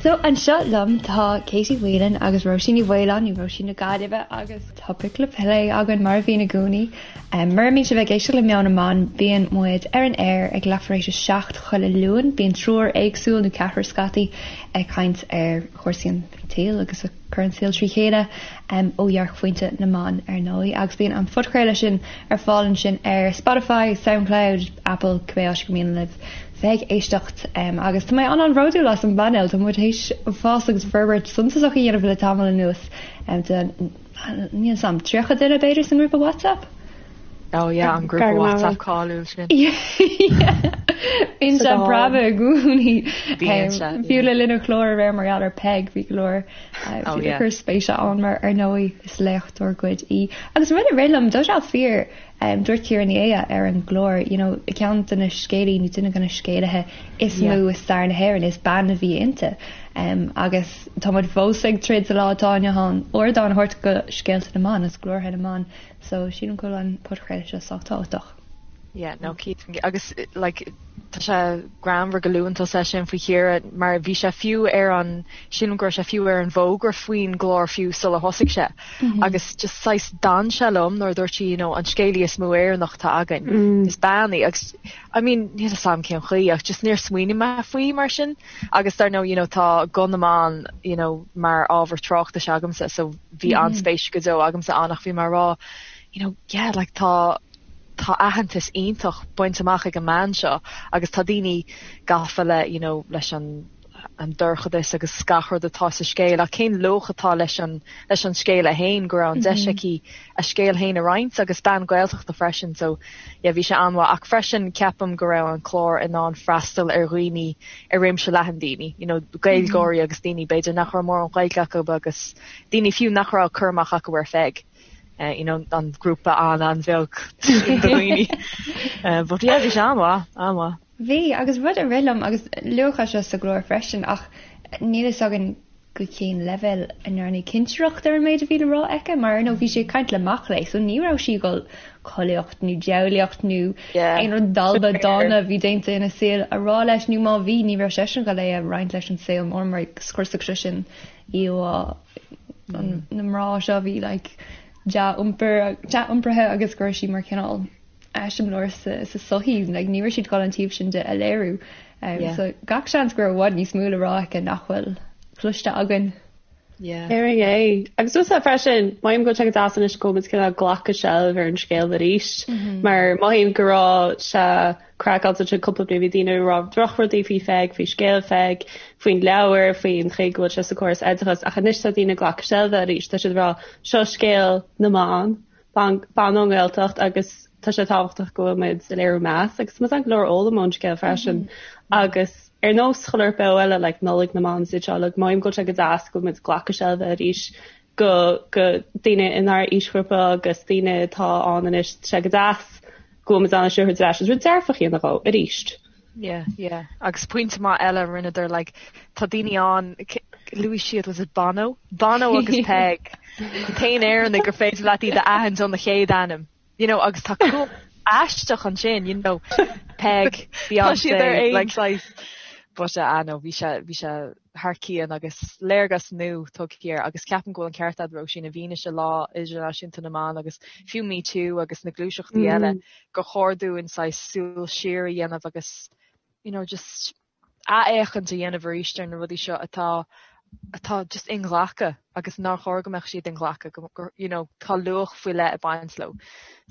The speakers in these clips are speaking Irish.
So anseo liom tá Katie Whelan agus Róisín Ní Mhaoláin, nó Róisín na Gaillimhe agus topaic le plé againn mar a bhíonn i gcónaí. Mura mbíonn sibh ag éisteacht le Meon na mBan, bíonn muid ar an aer ag leathuair tar éis a 7 chuile Luan. Bíonn triúr éagsúil, nó ceathrar scaití, ag caint ar chúrsaí an tsaoil agus a cur an saol trí chéile ó dhearcphointe na mban ar ndóigh agus bíonn an podchraoladh sin ar fáil ansin ar Spotify, Soundcloud, Apple, cibé áit gur mian libh bheith ag éisteacht agus tá mé an-an-bhródúil as an bpainéal, tá muid théis fás agus forbairt suntasach a dhéanamh le tamall anuas de níl 'fhios a'm, 30 duine b'fhéidir sa ngrúpa WhatsApp? Oh yeah, an grúpa WhatsApp cáiliúil sin. Bíonn sé ag preabadh i gcónaí. Fiú le linn an chláir aréir mar gheall ar Peig, bhí go leor oh, ag cur spéise ann mar ar ndóigh is léachtóir dár gcuid í. Agus rud a rith liom, tá sé fíor dúirt Ciara Ní É ar an gclár, you know, ceann de na scéalaí nó duine de na scéalaithe is mó i stair na hÉireann, is bean a bhí inti. Agus tá muid fós ag troid sa lá atá inniu ann ardán a thabhairt go scéalta na mban agus glórtha na mban. So sílim go bhfuil an podchraoladh seo sách tábhachtach. Yeah, no, cinnte. Agus like tá sé greannmhar go luann tusa é sin faoi Chiara mar bhí sé fiú ar an, sílim go raibh sé fiú ar an bhfógra faoin gclár fiú sular thosaigh sé. Agus just saghas d'fhan sé liom nuair a dúirt sí, you know, an scéalaí is mó Éireannach atá againn, is bean í. Agus I mean, níl 'fhios a'm cén chaoi ach just níor smaoinigh mé faoi mar sin. Agus dar ndóigh, you know, tá guth na mban, you know, mar ábhar tráchtais agamsa so bhí an-spéis go deo agamsa ann ach bhí mé ag rá, you know, yeah, like tá tá aitheantas iontach bainte amach ag an mbean seo agus tá daoine gafa le, you know, leis an an dorchadas agus gach rud atá sa scéal ach cén luach atá leis an leis an scéal é féin go raibh an deis aici a scéal féin a roinnt agus bean Gaeltachta freisin so yeah bhí sé an-mhaith ach freisin ceapaim go raibh an clár in ann freastal ar dhaoine ar réimse leathan daoine, you know, Gaeilgeoirí agus daoine b'fhéidir nach raibh mórán Gaeilge acu agus daoine fiú nach raibh cur amach acu ar Pheig. Uh, you know, an grúpa an-an-bheag de dhaoine. Uh, but yeah, bhí sé an-mhaith, an-mhaith. Bhí, agus rud a rith liom, agus luadh é seo sa gclár freisin, ach níl fhios againn go cén leibhéal a ndearnadh cinsireacht ar an méid a bhí le rá aici, mar ar ndóigh bhí sí ag caint le mac léinn, so ní raibh sí ag dul collaíocht nó diabhlaíocht nó aon rud dalba dána a bhí déanta ina saol a rá leis, nó má bhí, ní raibh seisean ag dul é a roinnt leis an saol mór mar scriosfadh sé sin íomhá na mná seo a bhí like dea-iompar, dea-iompraithe agus go raibh sí mar chineál eiseamláir sa sochaí, like ní raibh siad ag dul an taobh sin de a léiriú. Yeah. So gach seans go raibh i bhfad níos mó le rá aici nach bhfuil cloiste againn. Yeah. Ar é. Agus tusa freisin, mothaím go bhfuil sé go deas anois go bhfuil muid cineál ag glacadh seilbh ar an scéal arís, mar mothaím go raibh sé craiceáilte ansin cúpla bliain, bhí daoine ag rá drochrudaí faoi Pheig, faoi scéal Pheig, faoin leabhar, faoin chaoi go bhfuil sé sa chóras oideachais, ach anois tá daoine ag glacadh seilbhe arís, tá siad ag rá seo scéal na mban, bean ón nGaeltacht agus tá sé tábhachtach go bhfuil muid ag léiriú meas agus tá muid in ann go leor a fhoghlaim ón scéal freisin agus ar nós chuile beo eile like Nollaig na mBan is iad seo like mothaím go bhfuil sé go deas go bhfuil muid ag glacadh seilbhe arís go go daoine inár aoisghrúpa agus daoine atá ann anois tá sé go deas go bhfuil muid in ann seo a thabhairt ar ais is rud dearfach a dhéanamh dhó arís. Yeah, yeah. Agus pointe maith eile a rinneadar, like, tá daoine ann, luaigh siad, was it Bono? Bono agus Peig. An t-aon Éireannaigh gur féidir leat iad a aithint óna chéad ainm. You know, agus tá cumhacht aisteach ansin, you know, Peig, Tá siad ar aon like, saghas. But, uh, ah, no, bhí sé, bhí sé thar cionn agus léargas nua tugtha air agus ceapaim go bhfuil an ceart agat Róisín i bhfianaise Lá Idirnáisiúnta na mBan agus fiú Me Too agus na gluaiseachtaí eile gur chóir dúinn saghas súil siar a dhéanamh agus you know just athfhéachaint a dhéanamh arís ar na rudaí seo atá atá just inghlactha agus nár chóir go mbeadh siad inghlactha go go you know tá luach faoi leith ag baint leo.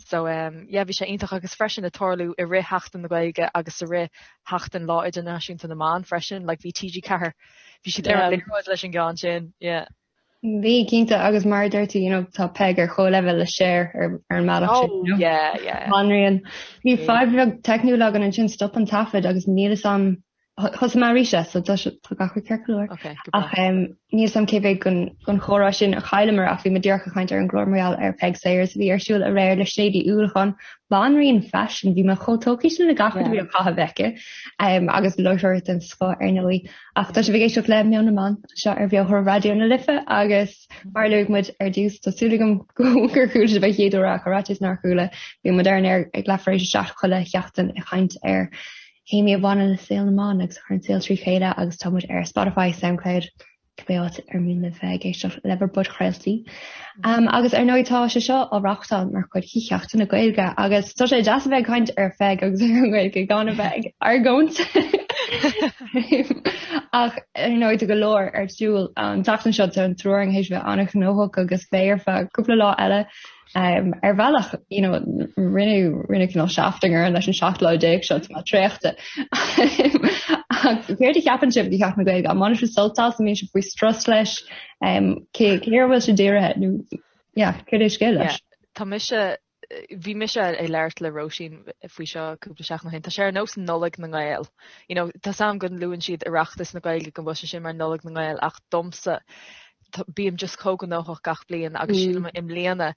So um yeah bhí sé iontach agus freisin ag tarlú i rith Sheachtain na Gaeilge agus i rith Sheachtain Lá Idirnáisiúnta na mBan freisin like bhí TG4 bhí siad ar an liathróid leis an gceann sin yeah. Bhí, cinnte, agus mar a deir tú, you know, tá Peig ar chomhleibhéal le Cher ar ar an mbealach sin, you know. Yeah, yeah. Banríon. Bhí fadhb bheag teicniúil againn ansin, stop an taifead agus níl fhios a'm, thosaigh mé arís é, so tá sé, tá gach rud ceart go leor. Okay, go breá. Ach um, níl fhios a'm cé mhéad den, den chomhrá sin a chailleamar ach bhí muid díreach ag caint ar an gclár mar gheall ar Peig Sayers a bhí ar siúl aréir le Sinéad Uí Uallacháin, banríon faisin, bhí mé chomh tógtha sin le gach rud a bhí á chaitheamh aici, um, agus láithreoir den scoth ar ndóigh. Ach tá sibh ag éisteacht le Meon na mBan anseo ar Bheo Raidió na Life agus mar a luaigh muid ar dtús, tá súil agam gur chuala sibh an chéad uair ach ar fhaitíos nár chuala, bíonn muid ar an aer ag leathuair tar éis a 7 chuile sheachtain ag caint ar. théamaí a bhaineann le saol na mban agus a chuireann an saol trí chéile agus tá muid ar Spotify, Soundcloud, cibé áit ar mian libh bheith ag éisteacht le bhur bpodchraoltaí. Um, agus ar ndóigh tá sé seo á reáchtáil mar chuid de Sheachtain na Gaeilge agus tá sé deas a bheith ag caint ar Pheig agus ar an nGaeilge gan a bheith ag argóint. Ach ar ndóigh tá go leor ar siúl an tseachtain seo tá an triúr againn théis bheith an-ghnóthach agus beidh ar feadh cúpla lá eile. Um, ar bhealach you know, rinneadh rinneadh cineál seachtain orainn leis an 17 lá seo tá mé traochta. Ach céard a cheapann sibh faoi Sheachtain na Gaeilge? An mbaineann sibh sult as, an mbíonn sibh faoi strus leis? Um, cé cé air a bhfuil sé dírithe nó yeah, céard é scéal leis? Yeah, tá mise bhí mise ag labhairt le Róisín faoi seo cúpla seachtain ó shin. Tá sé ar nós Nollaig na nGael. You know, tá 's a'm go luann siad Oireachtas na Gaeilge go bhfuil sé sin mar Nollaig na nGael ach domsa bím just chomh gnóthach gach bliain agus sílim i mbliana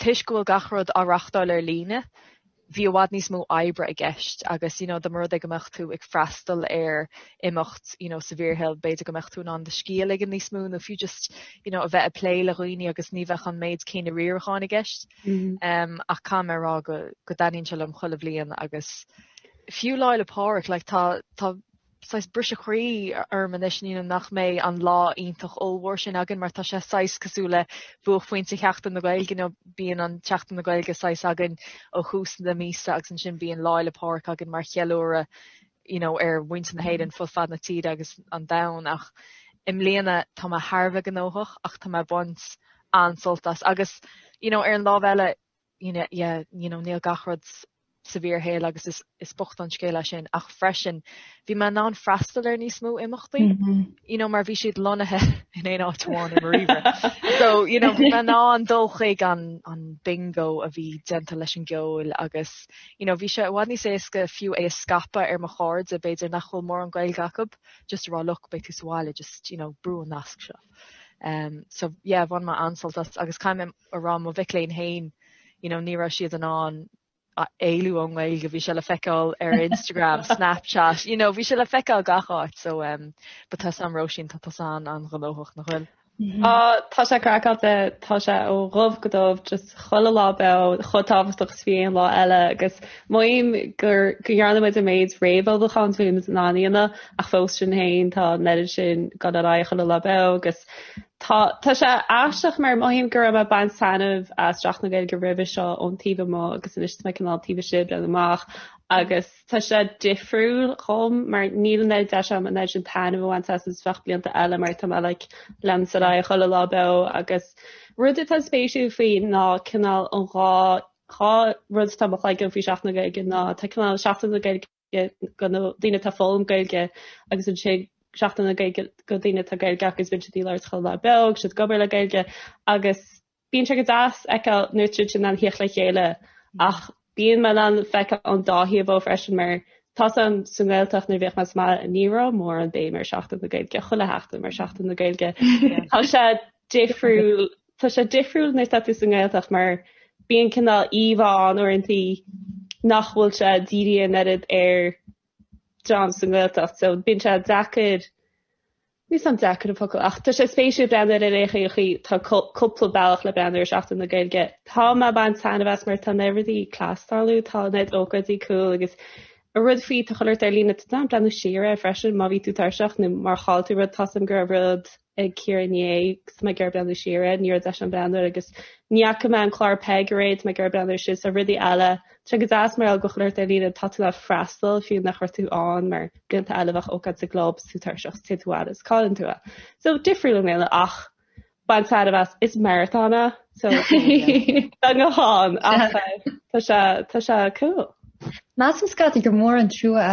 toisc go bhfuil gach rud á reachtáil ar líne, bhí i bhfad níos mó oibre i gceist agus you know dá mba rud é go mbeadh tú ag freastal ar imeacht you know sa bhfíorshaol b'fhéidir go mbeadh tú in ann do scíth a ligean níos mó nó fiú just you know a bheith ag plé le dhaoine agus ní bheadh an méid céanna riaracháin i gceist. Um, ach caithfidh mé a rá go go dtaitníonn sé liom chuile bhliain agus fiú Lá 'le Pádraig like tá tá saghas briseadh croí orm anois you know nach mbeidh an lá iontach ollmhór sin againn mar tá sé saghas cosúil le buaicphointe Sheachtain na Gaeilge, you know bíonn an tSeachtain na Gaeilge saghas againn ó thús na míosa agus ansin bíonn Lá 'le Pádraig againn mar cheiliúradh you know ar mhuintir na hÉireann fud fad na tíre agus an domhain ach i mbliana tá mé thar a bheith gnóthach ach tá mé ag baint an-sult as agus you know ar an lámh eile you know, yeah, you know, níl gach rud sa bhfíorshaol agus is, is bocht an scéal é sin ach freisin bhí mé in ann freastal ar níos mó imeachtaí mm -hmm. you know, mar bhí siad lonnaithe in aon áit amháin i mo ríomhaire. So you know, bhí mé in ann dul chuig an, an bingo a bhí déanta leis an gceol agus you know, bhí sé i bhfad níos éasca fiú é a scaipeadh ar mo chairde b'fhéidir nach bhfuil mórán Gaeilge acu just a rá look beidh tú sa bhaile just you know, brú an nasc seo. Um, so yeah, bhain mé an-sult as agus caithfidh mé a rá mo mhic léinn féin, you know, ní raibh siad in ann éalú ón nGaeilge, bhí sé le feiceáil ar Instagram, Snapchat, you know, bhí sé le feiceáil gach áit, so um, but tá 's a'm Róisín, tá tusa an-ghnóthach nach bhfuil? Mm-hmm. Ah, tá sé craiceáilte, tá sé ó dhubh go dubh, just chuile lá beo, chomh tábhachtach is bhí aon lá eile agus mothaím gur go ndearna muid an méid réamhullmhúcháin is a bhí muid in ann a dhéanamh ach fós sin féin tá an oiread sin ag dul ar aghaidh chuile lá beo agus Tá tá sé aisteach mar mothaím go raibh mé ag baint taitneamh as Seachtain na Gaeilge roimhe seo ón taobh amuigh agus anois tá mé cineál taobh istigh ag breathnú amach agus tá sé difriúil dhom mar níl an oiread deis agam an oiread sin taitneamh a bhaint as is bheadh blianta eile mar tá mé like leanúint ar aghaidh chuile lá beo agus rud atá spéisiúil faoi ná cineál an dhá dhá rud atá i mo chloigeann faoi Seachtain na Gaeilge ná tá cineál Seachtain na Gaeilge do na daoine atá ag foghlaim Gaeilge agus ansin Seachtain na Gaeilge do daoine atá Gaeilge acu agus bíonn siad ag labhairt chuile lá beo agus siad ag obair le Gaeilge agus bíonn sé go deas feiceáil nuair atá siad in ann theacht le chéile ach bíonn mé in ann feiceáil an dá thaobh dhó freisin mar tá 's a'm sa nGaeltacht nuair a bhíodh mé sa mbaile ní raibh mórán béim ar Seachtain na Gaeilge chuile sheachtain mar Seachtain na Gaeilge. Tá sé difriúil Tá sé difriúil nuair atá tú sa nGaeltacht mar bíonn cineál íomhá ann uaireantaí nach bhfuil sé dírithe an oiread ar dream sa nGaeltacht so bíonn sé deacair, níl 's a'm deacair an focal ach tá sé spéisiúil breathnú air ar aon chaoi chaoi tá cúpla bealach le breathnú ar Seachtain na Gaeilge. Tá mé ag baint taitneamh as mar tá an oiread rudaí class ag tarlú, tá an oiread ócáidí cool agus an rud faoi tá chuile shórt ar líne tá tú in ann breathnú siar air freisin má bhí tú tuirseach nó má chaill tú rud tá 's a'm go raibh rud ag Ciara inné agus tá mé ag iarraidh breathnú siar air, ní raibh deis agam breathnú air agus ní fhaca mé an clár Peig aréir, tá mé ag iarraidh breathnú air sin, so rudaí eile. Tá sé go deas mar gheall go bhfuil chuile shórt ar líne, tá tú in ann freastal fiú nach raibh tú ann mar blianta eile bheadh ócáid sa gclub is tú tuirseach is téann tú abhaile is cailleann tú é. So difriúil i mbliana ach baint taitneamh as, is maratón é so tá go han ach tá sé tá sé cool. Measaim scaití gur mór an trua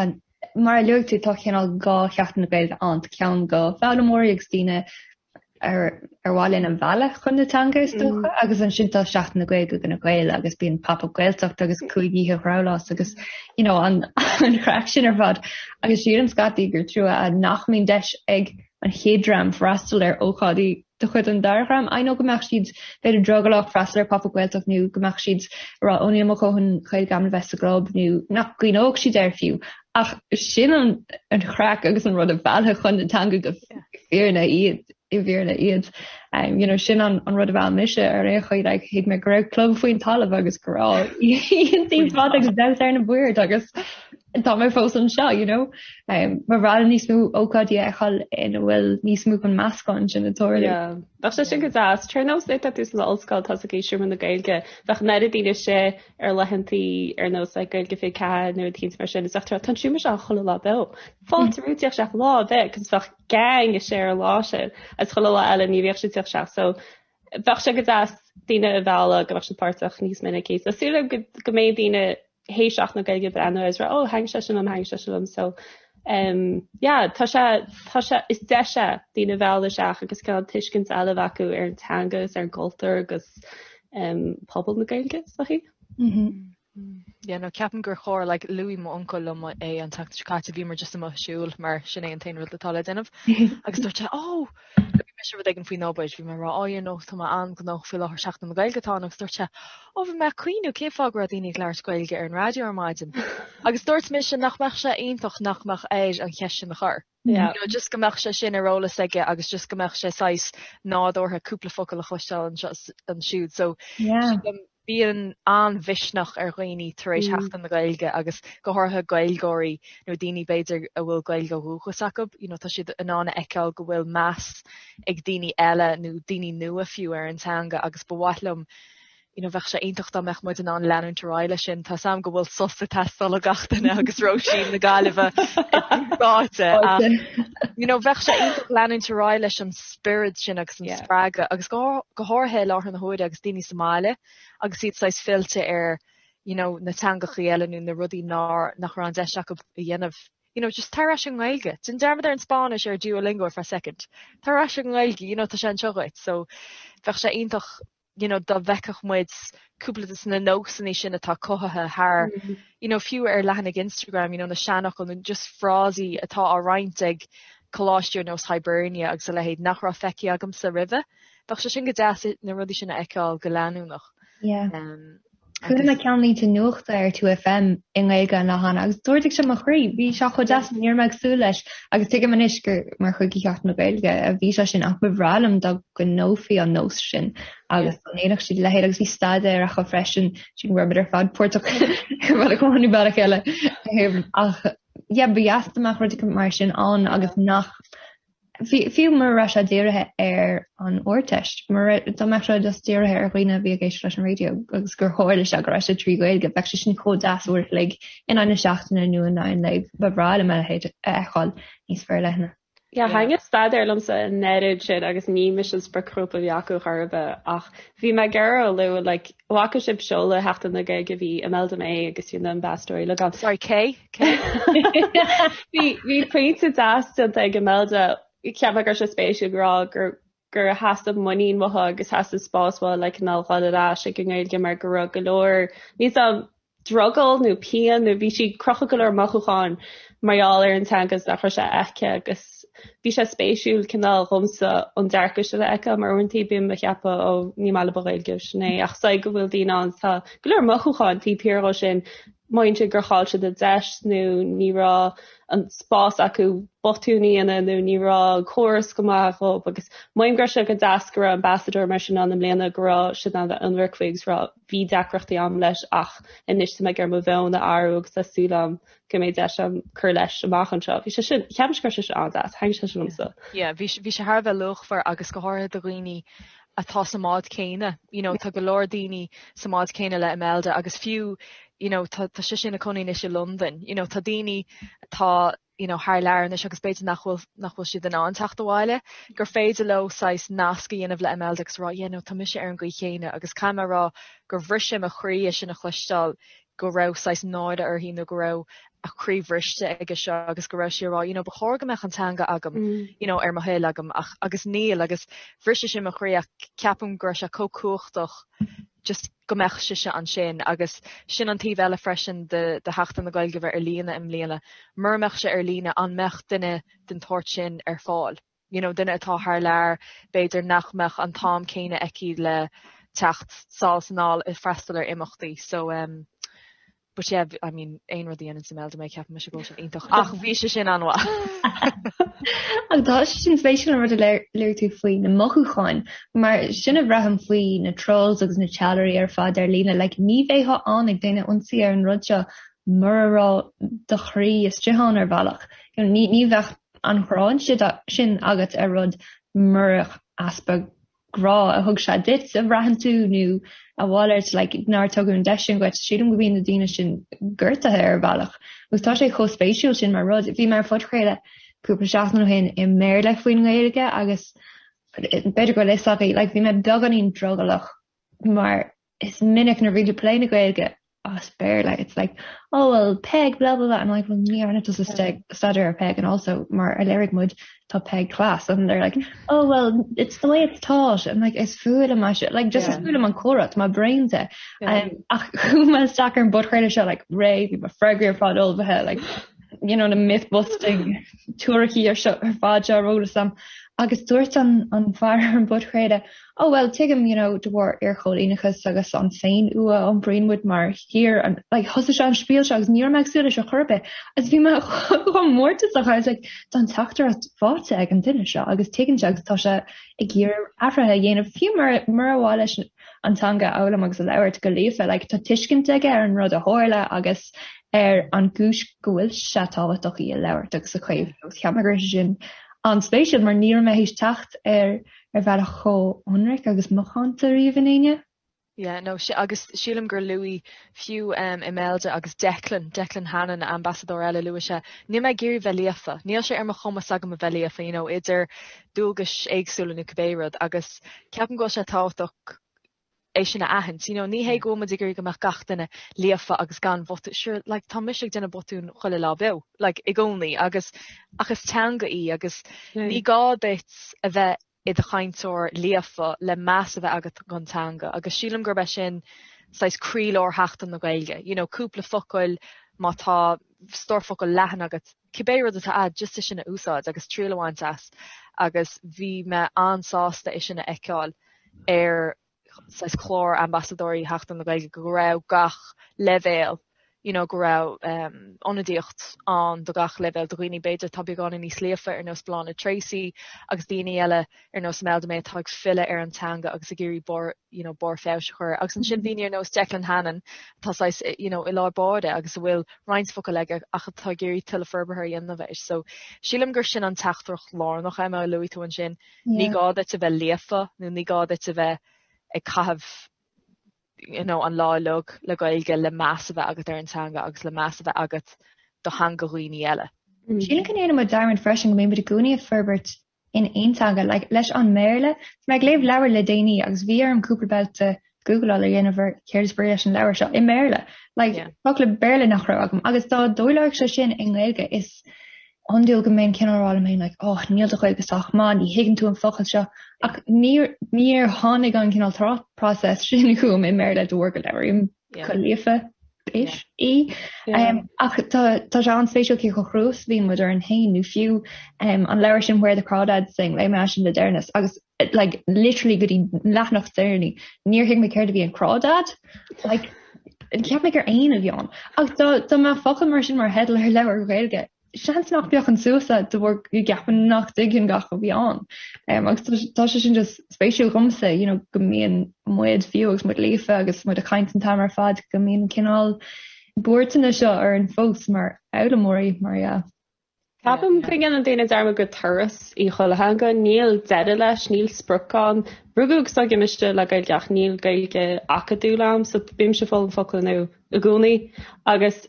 Mar a luaigh tú, tá cineál 2 Sheachtain na Gaeilge ann, tá ceann do foghlaimeoirí agus daoine ar ar mhaith linn a mhealladh chun na teanga is dócha, agus ansin tá Seachtain na Gaeilge do na Gaeil agus bíonn Pop Up Gaeltacht agus 5 oíche Dhrabhláis agus you know an an chraic sin ar fad. Agus sílim scaití gur trua nach mbíonn deis ag an chéad dream freastal ar ócáidí de chuid an dara dhream. I know go mbeadh siad b'fhéidir drogallach freastal ar Pop Up Gaeltacht nó go mbeadh siad ag rá ó níl mo dhóthain Gaeilge agam le bheith sa gclub nó nach gcuimhneodh siad air fiú. Ach sin an an chraic agus an rud a mheallfadh chun na teanga go fírinne iad i bhfírinne iad. Um, you know, sin an, an rud a mheall mise ar aon chaoi like, thuig mé go raibh club faoin talamh agus go raibh oícheantaí fada agus damhsa ar na boird agus. Tá mé fós anseo, you know. Um, ba bhreá liom níos mó ócáidí a fheiceáil ina bhfuil níos mó den meascán sin ag tarlú. Yeah. Bheadh sé sin go deas. Ar nós nuair atá tú san ollscoil tá ag seomra na Gaeilge, bheadh an oiread daoine istigh ar laethantaí ar nós like, Gaeilge 24 nó rud éicint mar sin, is bheadh tú tá an seomra seo chuile lá beo. Fáilte romhat teacht isteach lá ar bith, cos bheadh gang istigh ar an lá sin, agus chuile lá eile ní bheadh siad teacht isteach. So bheadh sé go deas daoine a mhealladh go mbeadh siad páirteach níos minicí. So súil agam go, go mbeidh daoine théis Seachtain na Gaeilge breathnú agus rá oh thaitin sé sin liom, thaitin sé sin liom. So um, yeah, tá sé, tá sé, is deis é daoine a mhealladh isteach agus cineál tuiscint eile a bheith acu ar an teanga agus ar an gcultúr agus um, pobal na Gaeilge, is dóichí. Mm -hmm. Yeah, no, ceapaim gur chóir, like, luaigh m'uncail liom é an tseachtain seo caite, bhíomar just amuigh ag siúl mar sin é an t-aon rud atá le déanamh. Agus dúirt sé, oh, bhí mise rud éigin faoin obair, bhí mé ag rá, oh, you know, tá mé an-ghnóthach faoi láthair Seachtain na Gaeilge atá ann, agus dúirt sé, oh, bhí mé ag cuimhniú cén fáth go raibh daoine ag labhairt Gaeilge ar an raidió ar maidin. Agus dúirt mise nach mbeadh sé iontach nach mbeadh air an cheist sin a chur. Yeah. You know, just go mbeadh sé sin ar eolas aige agus just go mbeadh sé saghas nádúrtha cúpla focal a chloisteáil anseo is ansiúd. So Yeah. sílim bíonn an-mhisneach ar dhaoine tar éis Mm. Sheachtain na Gaeilge agus go háirithe Gaeilgeoirí nó daoine b'fhéidir a bhfuil Gaeilge ó dhúchas acu, you know, tá siad in ann a fheiceáil go bhfuil meas ag daoine eile nó daoine nua fiú ar an teanga agus ba mhaith liom you know, bheadh sé iontach dá mbeadh muid in ann leanúint ar aghaidh leis sin. Tá 's a'm go bhfuil sos ag teastáil ó gach duine agus Róisín na Gaillimhe ráite ach you know, bheadh sé iontach leanúint ar aghaidh leis an spiorad sin agus an Yeah. spreagadh agus go go háirithe i láthair na huaire agus daoine sa mbaile agus iad saghas fillte ar you know, na teangachaí eile nó na rudaí nár nach raibh an deis acu a dhéanamh. You know, just tar ar ais an nGaeilge. Déan dearmad ar an Spáinnis ar Duolingo ar feadh second. Tar ar ais an nGaeilge, you know, tá sé anseo dhuit. So bheadh sé iontach you know, dá bhfeicfeadh muid cúpla de na nósanna sin atá cothaithe thar, you know, fiú ar leathanaigh Instagram, you know, na seanfhocail nó just frásaí atá á roinnt ag coláistí ar nós Hibernia agus a leithéid nach raibh feicthe agamsa roimhe. Bheadh sé sin go deas na rudaí sin a fheiceáil go leanúnach. Yeah. Um, Chuala mé ceannlínte nuachta ar 2FM i nGaeilge an lá cheana agus d'ardaigh sé mo chroí. Bhí sé chomh deas, ní raibh mé ag súil leis agus tuigim anois gur mar chuid de Sheachtain na Gaeilge a bhí sé sin ach ba bhreá liom dá gcoinneofaí an nós sin agus dá ndéanfadh siad a leithéid agus bhí staidéar acu freisin sin go raibh muid ar fad páirteach ar bhealach amháin nó bealach eile. Ach yeah, ba dheas dá mbeadh rud mar sin ann agus nach Fiú mura raibh sé dírithe ar an Ardteist, mura dá mbeadh sé just dírithe ar dhaoine a bhí ag éisteacht leis an raidió agus gur tharla sé go raibh sé trí Ghaeilge, bheadh sé sin chomh deas uair a chloig in aghaidh na seachtaine nó in aghaidh an lae. Ba bhreá liom a leithéid a fheiceáil níos forleithne. Yeah, thaitin staidéar liomsa an oiread sin agus ní mise an spriocghrúpa a bhí acu chor ar bith ach bhí mé ag iarraidh a lua like bhfaca sibh seoladh Sheachtain na Gaeilge bhí Imelda May agus bhí na ambasadóirí uilig ann. Sorry, cé? Cé? Bhí bhí pointe deas déanta ag Imelda cheap mé go raibh sé spéisiúil ag rá gur gur theastaigh muinín uaithi agus theastaigh spás uaithi le cineál dhul ar ais ag an nGaeilge mar go raibh go leor níl 's a'm drogall nó pian nó bhí sí ag crochadh go leor mothúcháin mar gheall ar an teanga is nach raibh sé aici agus bhí sé spéisiúil cineál dhomsa an dearcadh sin a fheiceáil mar uaireanta bím ag ceapadh ó ní maith liom an Ghaeilge sin é ach is go bhfuil daoine ann tá go leor mothúcháin taobh thiar dhó sin mothaíonn siad gur chaill siad a deis nó ní raibh an spás acu botún a dhéanamh nó ní raibh córas go maith dhóibh agus mothaím go raibh sé go deas go raibh ambasadóir mar sin ann i mbliana go raibh siad in ann bheith ionraic faoi agus rá bhí deacrachtaí a'm leis ach anois tá mé ag iarraidh mo mheon a athrú agus tá súil a'm go mbeidh deis a'm cur leis amach anseo. Bhí sé sin, cheap mise go raibh sé sin an-deas, thaitin sé sin liomsa. Yeah, bhí bhí sé thar a bheith luachmhar agus go háirithe do dhaoine atá sa mbád céanna, you know, tá go leor daoine sa mbád céanna le Imelda agus fiú, you know, tá tá sise ina cónaí anois i Londain, you know, tá daoine atá you know, thar lear anois agus b'fhéidir nach bhfuil, nach bhfuil siad in ann teacht abhaile, gur féidir leo saghas nasc a dhéanamh le Imelda agus rá, yeah, no, tá mise ar an gcaoi chéanna agus caithfidh mé a rá gur bhris sé mo chroí é sin a chloisteáil go raibh saghas náire uirthi nó go raibh a croí bhriste aige seo agus go raibh sí ag rá, you know, ba chóir go mbeadh an teanga agam, mm. you know, ar mo thoil agam ach agus níl agus bhris sé sin mo chroí ach ceapaim go raibh sé chomh cumhachtach just go mbeadh sise ansin agus sin an taobh eile freisin de de Sheachtain na Gaeilge bheith ar líne i mbliana. Mura mbeadh sé ar líne an mbeadh duine den tsórt sin ar fáil? You know, duine atá thar lear, b'fhéidir nach mbeadh an t-am céanna aici le teacht sall is anall ag freastal ar imeachtaí. So um, But yeah, I mean, aon rud a dhéanann Imelda May ceapann mise go bhfuil sin iontach ach bhí sé sin an-mhaith. Ach tá sé sin spéisiúil an rud a luaigh tú faoi na mothúcháin, mar sin a bhraithim faoi na trolls agus na teallairí ar fad ar líne, like ní bheifeá ann ag déanamh ionsaí ar an rud seo. mura raibh do chroí istigh ann ar bhealach. You know, ní ní bheadh an ghráin sin agat ar rud murach easpa grá a thug sé duit a bhraitheann tú nó a mhalairt like nár tugadh an deis sin dhuit. Sílim go mbíonn na daoine sin gortaithe ar bhealach. Agus tá sé chomh spéisiúil sin mar rud. Bhí mé ar phodchraoladh cúpla seachtain ó shin i mBéarla faoin nGaeilge agus b'fhéidir go bhfuil fhios agaibh like bhí mé beagáinín drogallach mar is minic nuair a bhíonn tú ag plé na Gaeilge as Béarla it's like oh well Peig blah blah blah and I'm like well ní dhearna tusa staidéar ar Peig and also mar a léirigh muid tá Peig class and they're like oh well it's the way it's taught and like is fuath liom é sin like just is fuath liom an comhrá tá mé bréanta um, ach chuaigh mé isteach ar an bpodchraoladh seo like réidh bhí mo freagraí ar fad ullmhaithe like you know na myth busting teoiricí ar seo ar fad seo ar eolas agam agus dúirt an an fear ar an bpodchraoladh Oh well, tuigim, you know, de bharr iarchoilíneachas agus an féinfhuath a iompraíonn muid mar thír, and like thosaigh sé an spiel seo agus ní raibh mé ag súil leis ar chor ar bith agus bhí mé chomh mórtasach, I was like, tá an teachtaireacht faighte ag an duine seo agus tuigeann sé agus tá sé ag iarraidh athruithe a dhéanamh fiú mura mura mhaith leis an teanga a fhoghlaim agus a labhairt go líofa, like tá tuiscint aige ar an rud a tharla agus ar an gcúis go bhfuil sé tábhachtach í a labhairt agus a chaomhnú agus cheap mé go raibh sé sin an-spéisiúil mar ní raibh mé théis teacht ar ar bhealach chomh hionraic agus macánta riamh in éinne. Yeah, no, agus sílim gur luaigh fiú um, Imelda agus Declan, Declan Hannon, ambasadóir eile, luaigh sé, níl mé ag iarraidh bheith líofa, níl sé ar mo chumas agam a bheith líofa, you know, idir dualgais éagsúla nó cibé rud, agus ceapaim go bhfuil sé tábhachtach é sin a aithint. You know, ní hé go bhfuil muid ag iarraidh go mbeadh gach duine líofa agus gan bhotún, sure, like, tá mise ag déanamh botún chuile lá beo, like, i gcónaí, agus, ach is teanga í agus ní gá duit a bheith i do chainteoir líofa le meas a bheith agat don teanga agus sílim gurb é sin saghas croílár Sheachtain na Gaeilge. You know, cúpla focail má tá stór focal leathan agat, cibé rud atá a'd, just é sin a úsáid agus triail a bhaint as agus bhí mé an-sásta é sin a fheiceáil ar saghas clár ambasadóirí Sheachtain na Gaeilge go raibh gach leibhéal you know go raibh um, ionadaíocht ann do gach leibhéal do dhaoine b'fhéidir atá beagáinín níos líofa ar nós Bláthnaid Treacy agus daoine eile ar nós Imelda May atá ag filleadh ar an teanga agus ag iarraidh barr you know barr feabhais a chur agus ansin daoine ar nós Declan Hannon atá saghas you know i lár báire agus a bhfuil roinnt focal aige ach atá ag iarraidh tuilleadh forbartha a dhéanamh air. So sílim gur sin an teachtaireacht lárnach Emma a luaigh tú ansin Ní gá duit a bheith líofa nó ní gá duit a bheith ag caitheamh you know an lá uilig le Gaeilge le meas a bheith agat ar an teanga agus le meas a bheith agat do theanga dhaoine eile. Sílim go ndéanann muid dearmad freisin go mbíonn muid i gcónaí ag forbairt in aon teanga, like leis an mBéarla, bhí mé ag léamh leabhar le déanaí agus bhí orm cúpla babhta Googleáil a dhéanamh ar céard is brí leis an leabhar seo i mBéarla. Like, yeah. focla Béarla nach raibh agam. Agus dá dtarlódh sé sin i nGaeilge is iondúil go mbeinn cineál ag rá liom féin like, oh, níl do Ghaeilge sách maith, ní thuigeann tú an focal seo. Ach níor, níor tháinig an cineál thought process sin chugam i mBéarla de bharr go labhraím go líofa ish í. Um, ach tá tá sé an-spéisiúil cé chomh crua is a bhíonn muid orainn féin nó fiú um, an leabhar sin Where the Crawdads Sing léigh mé sin le deireanas agus like literally go dtí leathanach deireanach níor thuig mé céard a bhí in crawdad like cheap mé gur éan a bhí ann ach dá dá mbeadh focal mar sin mar theideal ar leabhar Gaeilge seans nach bhféachfainn suas air de bharr go gceapaim nach dtuigfinn gach a bhí ann. Um, agus tá sé sin just spéisiúil dhomsa you know, go mbíonn muid fiú agus muid líofa agus muid ag caint an t-am ar fad go mbíonn cineál buairteanna seo orainn fós mar fhoghlaimeoirí mar yeah. Ceapaim go ndéanann daoine dearmad gur turas í chuile theanga, níl deireadh leis, níl sprioc ann. Rugadh agus tógadh mise le Gaeilge ach níl Gaeilge acadúil agam so bímse ag foghlaim focail nua i gcónaí agus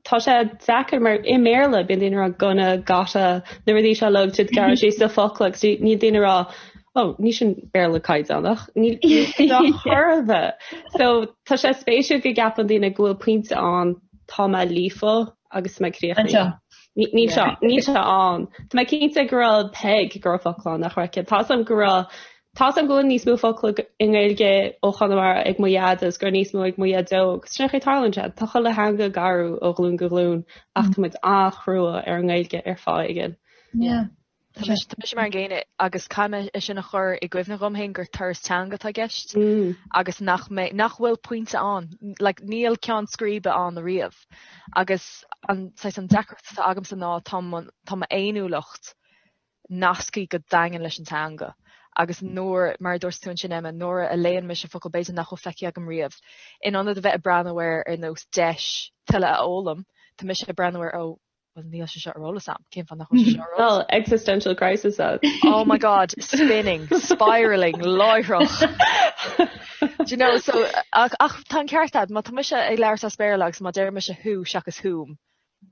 tá sé deacair mar i mBéarla bíonn daoine ag rá gonna, gotta, na rudaí seo uilig siad gearradh síos sa focal agus níl daoine ag rá oh ní sin Béarla caighdeánach, níl níl chor ar bith. So tá sé spéisiúil go gceapann daoine go bhfuil pointe ann tá mé líofa agus mé críochnaithe. Níl sé níl sé ann. Tá mé cinnte go raibh Peig go raibh focal ann nach raibh aici. Tá am go raibh Tá am go bhfuil níos mó focal i nGaeilge ó Chonamara ag mo dhaid agus go raibh níos mó ag mo dhaideo agus sin é tarlaíonn sé. Tá chuile theanga ag athrú ó ghlúin go glúin ach tá muid an-chrua ar an nGaeilge ar fáth éigin. Yeah. Tá mise mar an gcéanna agus caithfidh mé é sin a chur i gcuimhne dhom féin gur turas teanga atá i gceist agus nach mbeidh, nach bhfuil pointe ann, like níl ceann scríbe ann ariamh. Agus an saghas an deacracht atá agamsa ná tá mo tá m'fhéiniúlacht nasctha go daingean leis an teanga. Agus nuair, mar a dúirt tú ansin Emma, nuair a léann mise focal b'fhéidir nach bhfuil feicthe agam riamh, in ionad a bheith ag breathnú air ar nós deis tuilleadh a fhoghlaim, tá mise ag breathnú air ó, bhuel níl sé seo ar eolas a'm, cén fáth nach bhfuil sé seo ar eolas a'm? Existential crisis agat. Oh my God, spinning, spiralling, láithreach. Do you know, so, ach, ach tá an ceart a'd, má tá mise ag labhairt as Béarla agus má deir mise who seachas whom,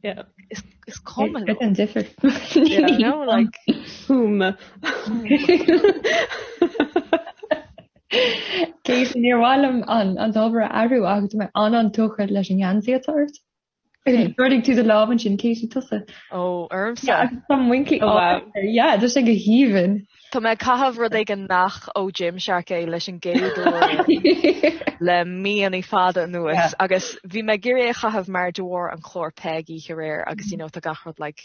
Yeah. Is, is cuma liom. An difear. Yeah, you know, like whom. Cé níor mhaith liom an an t-ábhar a athrú ach tá mé an-an-tógtha leis an ngeansaí atá ort. D'ardaigh tú do lámh ansin Katie tusa. Ó, ormsa. Yeah, tá muincí oh, wow. Yeah, tá sé go haoibhinn. Tá mé ag caitheamh rud éigin nach ó Gymshark é leis an gcéad uair le míonna fada anuas agus bhí mé ag iarraidh é a chaitheamh mar de bharr an chlár Peig oíche aréir agus you know tá gach rud like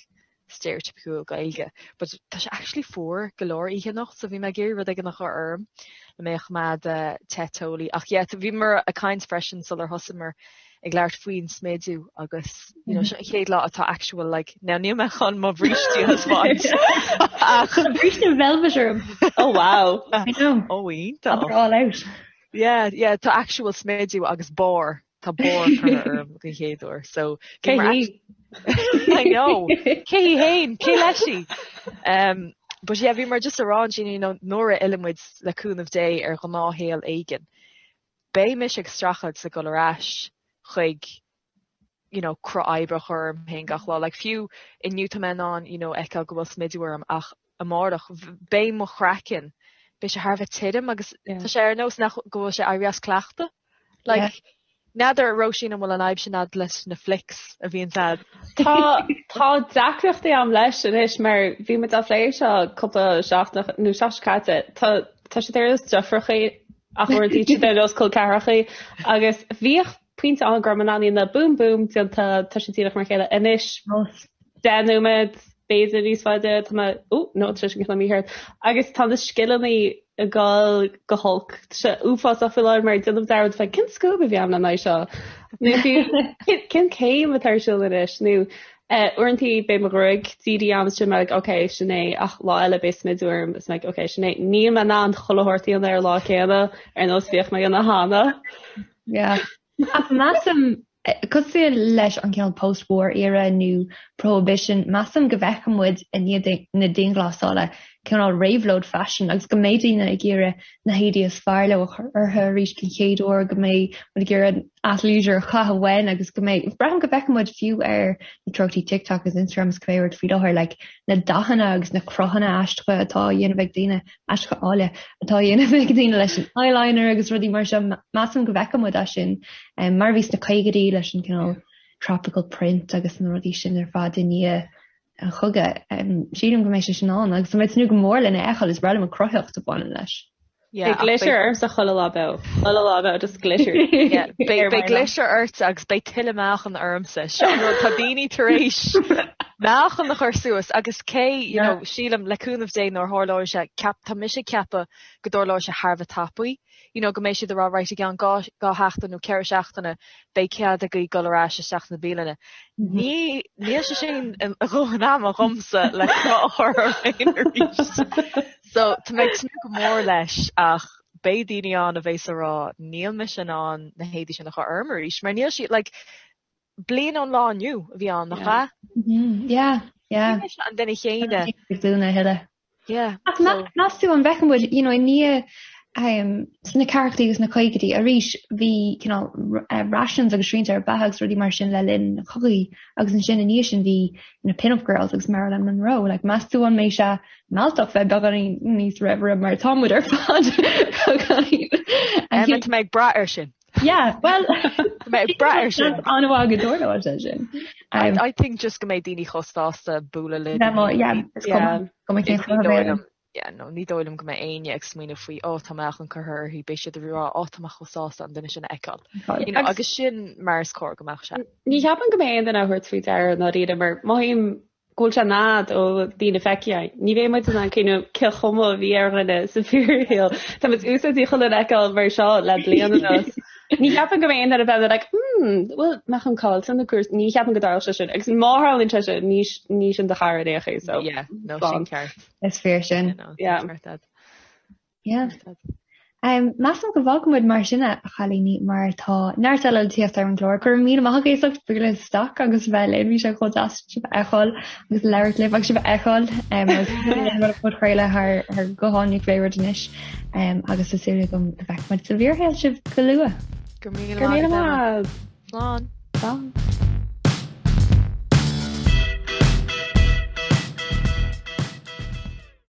stereotypical Gaeilge but tá sé actually fuar go leor oíche anocht so bhí mé ag iarraidh rud éigin a chur orm le mé a choimeád te teolaí ach yeah bhíomar ag caint freisin sular thosaíomar ag labhairt faoin smidiú agus you know, seo an chéad lá atá actual like now níl mé chun mo bhrístí a thaispeáint ach bríste velvet orm. Oh wow. I know. Oh iontach. All out. Yeah, yeah, tá actual smidiú agus barr tá barr curtha orm den chéad uair so Cé hí? I know. Cé hí féin? Cé leis í? Um, but yeah, bhíomar just ag rá ansin you know, nuair a fhilleann muid le cúnamh Dé ar ghnáthshaol éigin. beidh mise ag streachailt le dul ar ais chuig you know cruth oibre a chur orm féin gach lá. Like fiú inniu tá mé in ann you know fheiceáil go bhfuil smidiú orm ach amárach beidh mo chraiceann, beidh sé thar a bheith tirim agus tá sé ar nós nach go bhfuil sé éirithe as cleachtadh. Like n'fheadar Róisín an bhfuil an fhadhb sin a'd leis na flicks a bhíonns a'd. Tá tá deacrachtaí a'm leis anois mar bhí muid á phlé seo cúpla seachtain nó seachtain seo caite. Tá tá siad ar nós deirfiúrachaí ach uaireanta siad ar nós col ceathrachaí agus bhíodh pointe ann go raibh mé in ann iad a boom boom déanta tá sé díreach mar a chéile anois 10 nóiméad b'fhéidir níos faide tá mé ó no tá sé sin cineál mícheart agus tá na scileanna ag dul go holc tá sé uafásach faoi láthair mar déanaim dearmad fé cén scuab a bhí agam le haghaidh seo nó fiú cén céim atá ar siúl anois nó Uaireantaí beidh mo ghruaig dírithe agam is sin mé like ok sin é ach lá eile beidh smidiú orm is mé like ok sin é. Níl mé in ann chuile shórt a dhéanamh ar an lá céanna ar nós bhíodh mé a dhéanamh cheana. Yeah. Ach measaim, cosúil leis an cineál post-war era nó prohibition, measaim go bhfeicfidh muid i ndiaidh na dianghlasála cineál réabhlóid faisin agus go mbeidh daoine ag iarraidh na héadaí is fearr leo a chur orthu arís den chéad uair, go mbeidh muid ag iarraidh athleisure a chaitheamh uainn agus go mbeidh, braithim go bhfeicfidh muid fiú ar na treochtaí TikTok agus Instagram is cibé rud faoi láthair, like na dathanna agus na cruthanna aisteacha atá á dhéanamh ag daoine, aisteacha áille, atá á dhéanamh ag daoine leis an eyeliner agus rudaí mar seo, measaim go bhfeicfidh muid é sin mar a bhí sna caogaidí leis an cineál tropical print agus na rudaí sin ar fad i ndiaidh an chogaidh. Sílim go mbeidh sé sin ann agus tá mé ag tnúth go mór lena fheiceáil, is breá liom an cruthaitheacht a bhaineann leis. Yeah, Beidh glitter ormsa chuile lá beo. Chuile lá beo, just glitter. Yeah, beidh beidh glitter ort agus beidh tuilleadh meáchan ormsa. Seo an rud, tá daoine tar éis meáchan a chur suas agus cé, you know, sílim le cúnamh Dé nuair a tharlóidh sé, ceap, tá mise ag ceapadh go dtarlóidh sé thar a bheith tapaidh. you know go mbeidh siad ag rá right i gceann 2 sheachtain nó 4 seachtaine beidh cead agaibh dul ar ais isteach sna bialanna. Ní níl sé sin a dhóthain ama dhomsa le cruth a chur orm féin arís. So tá mé ag tnúth go mór leis ach beidh daoine ann a bheas ag rá níl mise in ann na héadaí sin a chur orm arís mar níl siad like bliain ón lá inniu a bhí ann nach ea? Yeah, yeah. Ní mise an duine chéanna. Ag dúnadh a thuilleadh. Yeah. Ach meas tú an bhfeicfidh muid, you know, i ndiaidh um, sna ceathrachaidí agus na caogaidí arís bhí cineál eh, rations agus srianta ar beatha agus rudaí mar sin le linn na cogaí agus ansin i ndiaidh sin bhí na pin-up girls agus Marilyn Monroe. Like, meas tú an mbeidh sé mealltach bheith beagáinín níos raimhre mar tá muid ar fad beagáinín. Emma, tá mé ag brath air sin. Yeah, well Tá mé ag brath air sin. An-mhaith go dtarlóidh sé sin. I, I think just go mbeidh daoine chomh sásta bualadh le Yeah, mo- yeah, is cuma go mbeidh cén Ní chuma dóigh bhéal. liom yeah, no, ní dóigh liom go mbeidh éinne ag smaoineamh faoi ó tá meáchan curtha uirthi, beidh siad ag rá ó tá mé chomh sásta an duine sin a fheiceáil. You know, Agus- agus sin mar is cóir go mbeadh sé. Ní cheapaim go mbeidh aon duine á thabhairt faoi deara i ndáiríre mar mothaím go bhfuil sé in fhad ó daoine feicthe. Ní bheidh muid in ann cuimhneamh cén chuma a bhí ar dhuine sa bhfíorshaol. Tá muid úsáidte chuile dhuine a fheiceáil mar seo le bliain anuas. Ní cheapaim go mbeidh aon duine a bheith like hmm, bhfuil meáchan caillte nó cúrsaí. Ní cheapaim go dtarlódh sé sin. Agus má tharlaíonn sé sin, ní ní sin do chara ar aon chaoi, so. Yeah, no, sin ceart. Is fíor sin. Yeah, no, Yeah. ceart agat. Yeah. Um, measaim go bhfágfaidh muid mar sin a chailíní mar tá neart eile le tíocht ar an gclár. Go raibh míle maith agaibh as ucht bualadh isteach agus bheith linn bhí sé chomh deas sibh a fheiceáil agus labhairt libh agus sibh a fheiceáil um, agus podchraoladh thar thar guthán nó pé rud anois um, agus tá súil agam go bhfeicfidh muid sa bhfíorshaol sibh go luath. Go míle maith. Slán. Slán.